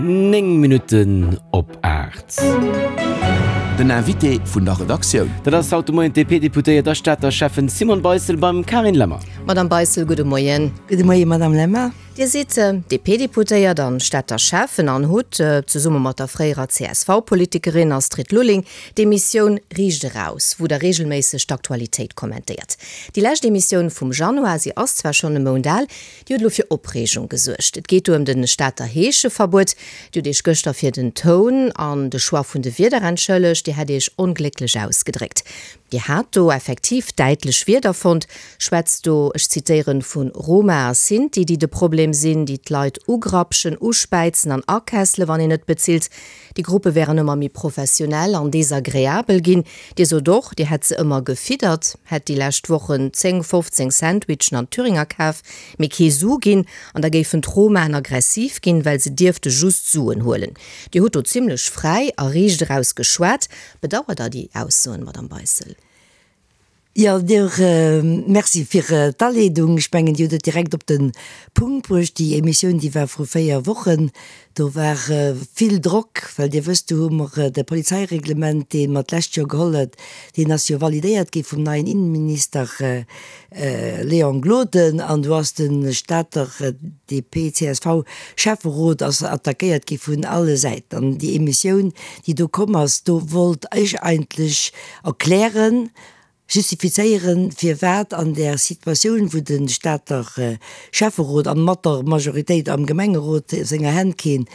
9 Minutten op 8. Den Invité vun der Redaktioun. Dat ass haut de Moien d'DP-Deputéiert a Stater Schäffen Simone Beissel beim Carine Lemmer. Madame Beissel, gudde Moien. Gudde Moien, Madame Lemmer. Dir sidd DP-Deputéiert an Stater Schäffen an hutt, zesumme mat der fréierer CSV-Politikerin Astrid Lulling, d'Emissioun Riicht eraus, wou Der reegelméisseg d'Aktualitéit kommentéiert. Déi lescht Emissioun vum Januar, si ass zwar schonn e Mount al, déi huet elo fir Opreegung gesuergt. Et geet do ëm de Stater Heescheverbuet. Dir hutt Iech gëschter fir den Toun an de Choix vun de Wierder entschëllegt. Dir hätt Iech onglécklech ausgedréckt. Dir hat do effektiv däitlech Wierder fonnt, schwätzt do, ech zitéieren, vu Roma a Sinti, déi de Problem sinn, déi d'Leit ugrapschen, uspäizen an akessele wann een net bezilt. Déi Gruppe wären ëmmer méi professionell an desagreabel ginn. Dir sot och, Dir hätt se ëmmer gefiddert, hätt déi lescht Wochen 10, 15 Sandwichen an Thüringer kaf, mee kee Su ginn, an da géifen d'Romaen aggressiv ginn, well se dierfte just Suen huelen. Dir hutt do zimlech fräi a riicht eraus geschwat. Bedauert Der déi Aussoen, Madame Beissel? Jo, Dir, Merci fir d'Aleedung. Ech mengen, Dir hutt et direkt op de Punkt bruecht. Déi Emissioun, déi war vru 4 Wochen. Do war vill Drock, well Dir wësst, do hu mer de Polizeireglement, dee mer d'lescht Joer geholl huet, deen ass jo validéiert gi vum neien Innenminister Léon Gloden. An do ass de Stater DP-CSV-Schäfferot ass attackéiert gi vun alle Säiten. An déi Emissioun, déi do komm ass, do wollt ech eigentlech erklären, justifizéieren, firwat an där Situatioun, wou de Stater Schäfferot an mat der Majoritéit am Gemengerot senger Hänn keen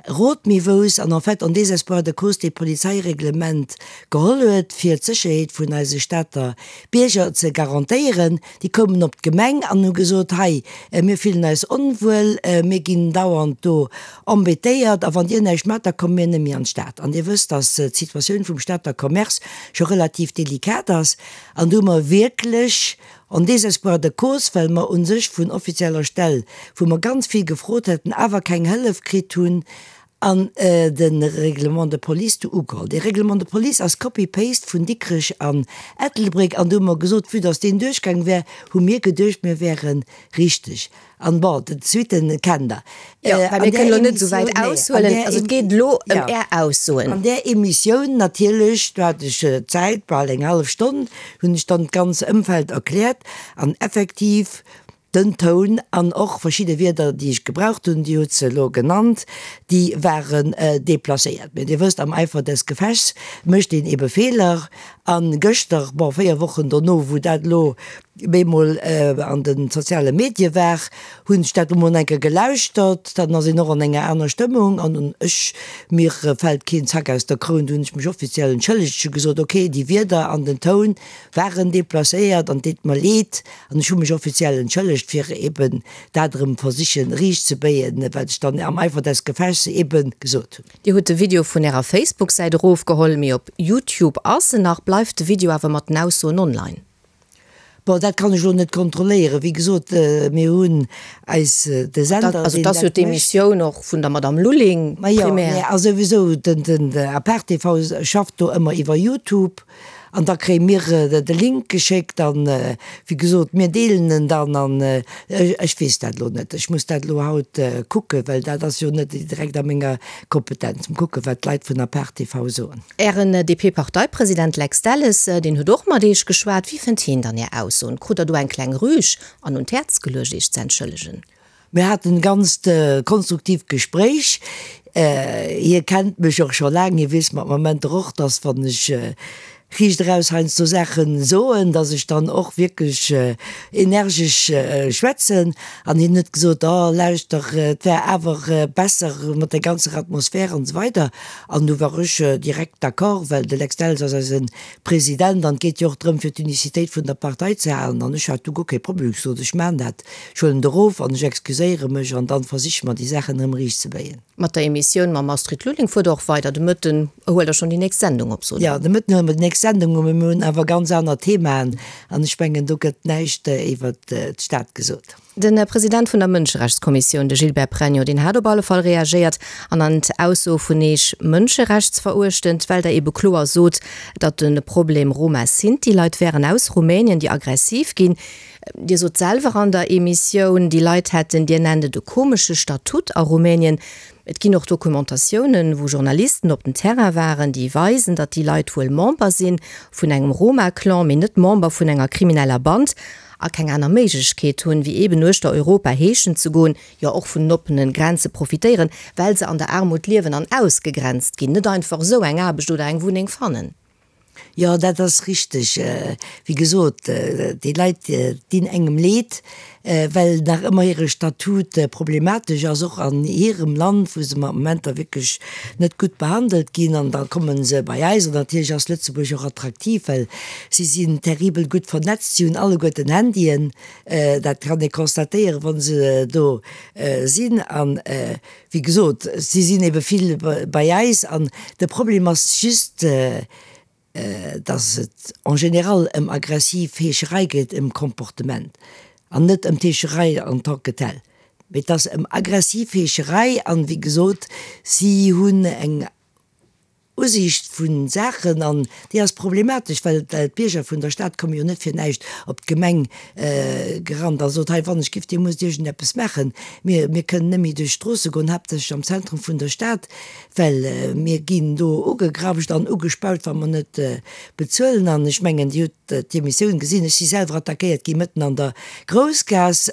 Rot méi wouss an en fait en désespoir de cause dee Polizeireglement geholl huet, fir d'Sécherheet vun eise Stater Bierger ze garantéieren. Déi koumen op d'Gemeng an hu gesot, hei, mir fillen eis onwuel, mir ginn dauernd do embêtéiert a wann Dir näischt maacht, da komme mir net méi an d'Stad. An Dir wësst, dass d'Situatioun vum Stater Commerce scho relativ delikat ass. An do hu mer wierklech en désespoir de cause, well mer u sech vun offizieller Stell, wou mer ganz vill gefrot hätten, awer keng Hëllef kritt hunn, an de Règlement de police do ugeholl. Dee Règlement de police ass Copy-paste vun Dikrech an Ettelbréck. An do hu mer gesot, vue dass deen duerchgaang wär, hu mir geduecht, mir wäere richteg. An bon, d'Suitten kennt Der. Jo, well mir kënnen elo net esou wäit aushuelen. Also et geet elo ëm Är Aussoen. An där Emissioun natierlech, do hat ech Zäit, bal eng hallef Stonn, hunn ech dann d'ganz Ëmfeld erkläert an effektiv den Toun an och verschidde Wierder, déi ech gebraucht hunn, Dir hutt se elo genannt, déi waren deplacéiert. Mä Dir wësst, am Eifer des Gefechts mécht een ebe Feeler. A gëschter, bon, 4 Wochen dono, wou dat elo bemol an de soziale Medie war, hunn ech dat emol eng Kéier gelauschtert, dann ass een och an enger aner Stëmmung an ech, mir fält keen Zack aus der Kroun, do hunn ech mech offiziell entschëllegt, ech hu gesot, ok, déi Wierder an den Toun waren deplacéiert an et deet mer leed an ech hu mech offiziell entschëllegt, fir eben dat erëm versichen riicht ze béien, wat ech dann am Eifer des Gefechts eben gesot hunn. Dir hutt de Video vun Ärer Facebook-Säit erofgeholl, mee op Youtube ass en nach. Bleift de Video awer mat den Aussoen online? Bon, dat kann ech elo net kontrolléieren. Wéi gesot, mir hunn eis de Sender, deen dat mécht. Also et ass jo d'Emissioun och vun der Madame Lulling primär. Majo, mä a souwisou, den Apart TV schafft do ëmmer iwwer Youtube an da kréie mir de Link geschéckt an, wéi gesot, mir deelen en dann an ech weess dat elo net. Ech muss dat elo haut kucken, well dat ass jo net direkt a menger Kompetenz. Mol kucken, wat d'Leit vun Apart TV soen. Ären DP-Parteipresident Lex Delles, deen huet och mat Iech geschwat. Wéi fënnt hien dann Är Aussoen? Krut Der do eng kleng Rüg an un d'Häerz geluecht, Iech ze entschëllegen? Mir haten e ganzt konstruktiivt Gespréich. Hie kennt mech och scho laang. Hie weess mat Momenter och, dass wann ech riicht eraus heiansdo Saache soen, dass ech dann och wierklech energesch schwätzen. An hien huet gesot, Oh, lauschter, et wär awer besser mat der ganzer Atmosphär an esou weider. An du war ech direkt d'accord, well de Lex Delles ass eise President an et geet jo och drëm, fir d'Unicitéit vun der Partei ze halen. An ech hat du guer kee Problem, ech sot, ech maachen dat, ech huelen et erof an ech excuséiere mech an dann versiche mer déi Saachen erëm riichtzebéien. Mat der Emissioun mam Astrid Lulling fuert Der och weider. De Mëtten huelt Der schonn déi nächst Sendung op, sot Der. Jo, de Mëtten huele mer déi nächst Sendung op, mee mir hunn awer ganz aner Themaen an ech mengen, do gëtt näischt iwwert d'Stad gesot. De President vun der Mënscherechtskommissioun, de Gilbert Pregno, deen hat op alle Fall reagéiert an an d'Ausso vun Eech mënscherechtsveruechtend, well Der ebe kloer sot, datt de Problem Roma Sinti Leit wären aus Rumänien, déi aggressiv ginn. Dir sot selwer an der Emissioun, déi Leit hätten, Dir nennt et e komesche Statut a Rumänien. Et ginn och Dokumentatiounen, wou Journalisten op den Terrain waren, déi weisen, datt déi Leit wuel Member si vun engem Roma-Clan, mee net Member vun enger krimineller Band a keng aner Méiglechkeet hunn, wéi eeben uechter Europa heeschen ze goen, jo och vun den oppene Grenze profitéieren, well se an der Aarmut liewen an ausgegrenzt ginn, net einfach esou eng Aarbecht oder eng Wunneng fannen. Jo, dat ass richteg. Wéi gesot, déi Leit dinn engem Leed, well nach ëmmer hire Statut problematesch ass, och an hirem Land, wou se mat Momenter wierklech net gutt behandelt ginn. An da komme se bei eis. An natierlech ass Lëtzebuerg och attraktiv, well si sinn terribel gutt vernetzt, si hunn alleguerten Handyen, dat kann ee constatéieren, wa se do sinn. An Wéi gesot, si sinn ebe vill bei eis an de Problem ass just, dass et en général ëm aggressiv Heescherei geet, ëm Comportement an net ëm d'Heescherei en tant que telle, mee et ass ëm aggressiv Heescherei an, wéi gesot, si hunn eng Usiicht vu Saachen, an déi ass problematesch, well d'Bierger vun der Stad komme jo net fir näischt op d'Gemeng gerannt a sot, hei wann ech giff, Dir musst iergendeppes maachen, mir mir kënnen net méi duerch d'Stroosse goen, haaptsächlech am Zentrum vun der Stad, well mir ginn do ugegrapscht an ugespaut, wa mer net bezuelen. An ech mengen, Dir hutt d'Emissioun gesinn, ech si selwer attackéiert gi mëtten an der Groussgaass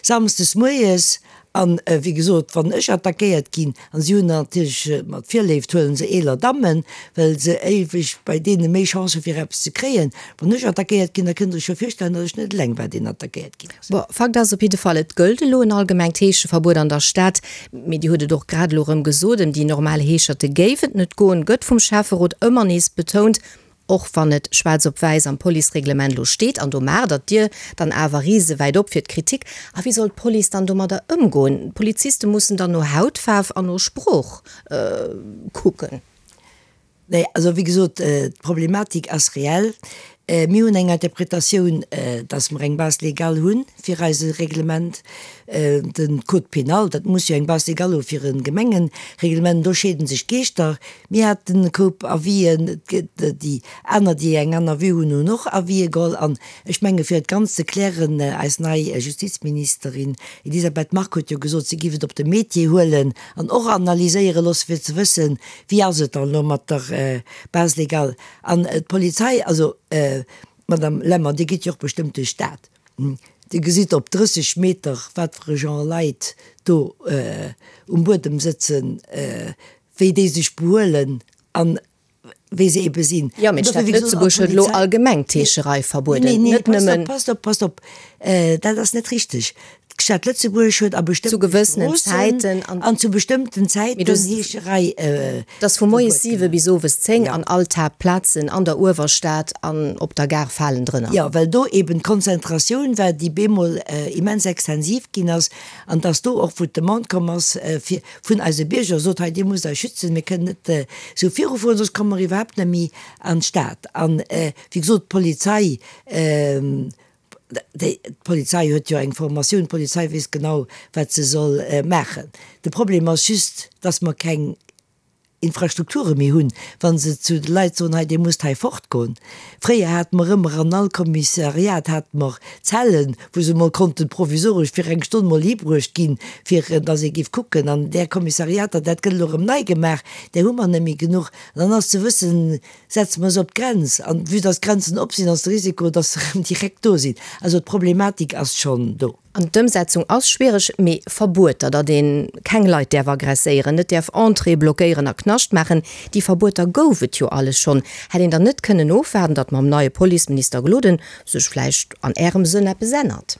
samsdes moies, An, wéi gesot, wann ech attackéiert ginn, an si hunn natierlech mat Virléift huele se eeler Dammen, well se éiweg bei deene méi Chance hu fir eppes ze kréien, wann ech attackéiert ginn, da kënnt Der iech jo virstellen, datt ech net eleng war, deen attackéiert ginn ass. Bon, Fakt ass op jidde Fall, et gëllt elo en allgemengt Heescheverbuet an der Stad. Mee Dir hutt et och grad elo erëm gesot, ëm déi normal Heescherte géif et net goen, gëtt vum Schäfferot ëmmer nees betount. Och wann et schwaarz op wäiss am Policereglement elo steet, an do maacht Der d'Dier dann awer risewäit op fir d'Kritik. A wéi soll d'Police dann domadder ëmgoen? D'Poliziste mussen dann no Hautfaarf an no Sprooch kucken. Nee, also wéi gesot, d'Problematik ass reell. Mir hunn eng Interpretatioun, dass mer eng Base légale hu fir eise Reglement, de Code pénal, dat muss jo eng Base légale hu fir e Gemengereglement. Do scheede sech d'Geeschter. Mir haten e Koup Avisen, et gëtt déi aner, déi eng aner Vue hunn, hunn och Avisë geholl. An ech menge fir et ganz ze klären, eis nei Justizministerin Elisabeth Margue huet jo gesot, si géif et op de Métier huelen an och analyséiere loosse fir ze wëssen, wéi ass et dann elo mat der Base légale. An d'Polizei, also Madame Lemmer, Dir gitt jo och bestëmmt duerch d'Stad, Dir gesitt op 30 Meter wat fir e Genre Leit do um Buedem sëtzen, wéi déi sech behuelen an wéi se ebe sinn. Jo, mee d'Stad Lëtzebuerg huet elo allgemeng d'Heescherei verbueden, net nëmmen. Passt op, passt op, dat ass net richteg. D'Stad Lëtzebuerg huet a bestëmmte Stroossen an zu bestëmmten Zäiten Heescherei verbueden. Dat ass vu moies 7 bis owes 10 an all d'Haaptplazen an der Uewerstad an op der Gare falen drënner. Jo, well do eben d'Konzentratioun war, déi bemol immens extensiv ginn ass an dass do och, wou d'Demande komm ass, fir vun eise Bierger sot, hei Dir musst eis schützen, mir kënnen net esou virufueren, soss komme mer iwwerhaapt net méi an d'Stad. An, wéi gesot, d'Polizei, déi, d'Polizei huet jo eng Formatioun, d'Polizei weess genau, wat se soll maachen. De Problem ass just, dass mer keng Infrastrukture méi hunn, wa se zu de Leit soen, hei Dir musst hei fortgoen. Fréier hate mer ëmmer an all Kommissariat hate mer Zellen, wou se mol konnten provisoresch fir eng Stonn mol hibruecht ginn, fir dass ee géif kucken. An där Kommissariater, dat gëtt elo erëm nei gemaach, där hu mer net méi genuch. An dann ass ze wëssen, setze mer se op d'Grenz? An vue dass d'Grenzen op sinn, ass de Risiko, dass se erëm direkt do sinn. Also d'Problematik ass schonn do. An d'Ëmsetzung ass schwiereg, mee Verbueter, datt ee keng Leit däerf aggresséieren, net däerf Entréeë blockéieren a Knascht maachen, déi Verbueter gouf et jo alles schonn. Hätt een dann net kënnen ofwaarden, datt mam neie Policeminister Gloden sech vläicht an Ärem Sënn eppes ännert?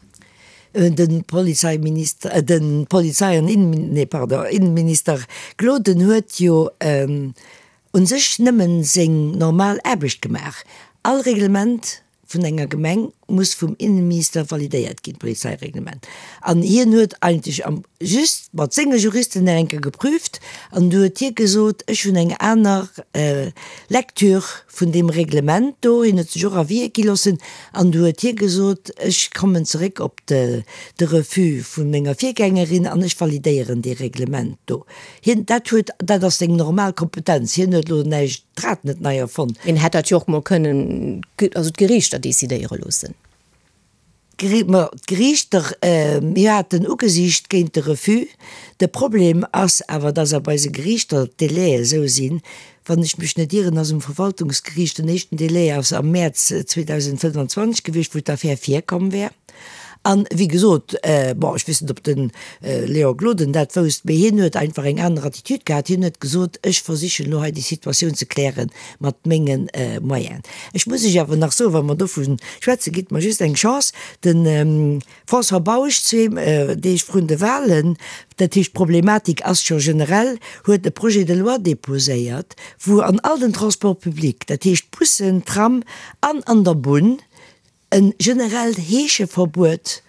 De Polizeiminister, de Polizei an Innen, nee pardon, Innenminister Gloden huet jo u sech nëmmen seng normal Aarbecht gemaach. All Reglement vun enger Gemeng muss vum Innenminister validéiert ginn, d'Polizeireglement. An hien huet eigentlech am just mat senge Juristen nach eng Kéier geprüft an du huet hie gesot, ech hunn eng aner Lecture vun deem Reglement do. Hien huet sech och Avisë gi loossen an du huet hie gesot, ech kommen zeréck op de de Refus vu menger Virgängerin an ech validéieren dee Reglement do. Hien, dat huet, dat ass seng normal Kompetenz, hien huet elo näischt, d'Rad net nei erfonnt. Hien hätt dat jo och mol kënnen, also d'Geriichter decidéiere loossen. D'Geriichter, mir haten ugesicht géint de Refus. De Problem ass awer, dass a bei eise Geriichter d'Délaië esou sinn, wann ech mech net ieren, ass um Verwaltungsgeriicht den éischten Délai ass am Mäerz 2025 gewiescht, wou d'Affär virkomm wär. An, wéi gesot, bon, ech weess net, ob de Léon Gloden dat wousst, mee hien huet einfach eng aner Attitude gehat. Hien huet gesot, ech versichen elo hei déi Situatioun ze kläre mat menge Moyenen. Ech muss Iech awer nach soen, wa mer dovu schwätzen, gitt mer just eng Chance, de François Bausch, zwee Deeg vrun de Wahlen, dat heescht d'Problematik ass scho generell, huet e Projet de loi déposéiert, wou an all den Transports publics, dat heescht Bussen, Tram an an der Bunn, E generellt Heescheverbuet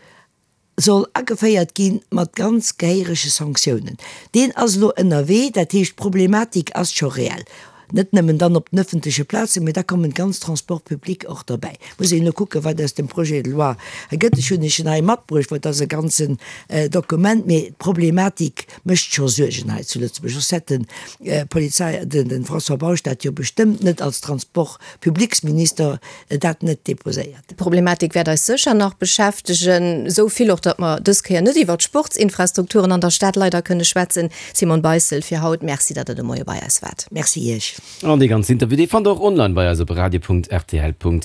soll ageféiert gi mat ganz gehéierege Sanktiounen. Deen ass elo ënnerwee, dat heescht d'Problematik ass scho reell. Net nëmmen dann op den ëffentleche Plazen, mee da kommen d'ganz Transports publics och derbäi. Muss een elo kucken, wat aus dem Projet de loi gëtt. Ech hunn Iech en hei matbruecht, well et ass e ganzen Dokument, mee d'Problematik mécht scho Suergen hei zu Lëtzebuerg. Soss hätt de Polizei, de François Bausch dat jo bestëmmt net als Transport publics-Minister dat net deposéiert. D'Problematik wäert eis sécher nach beschäftegen, esou vill och, datt mer dës Kéier net iwwert d'Sportsinfrastrukturen an der Stad leider kënne schwätzen. Simone Beissel, fir haut Merci, datt Der de Moie bei eis waart. Merci Iech. An dee ganzen Interview, dee fannt Der och online bei eis op radio.rtl.lu.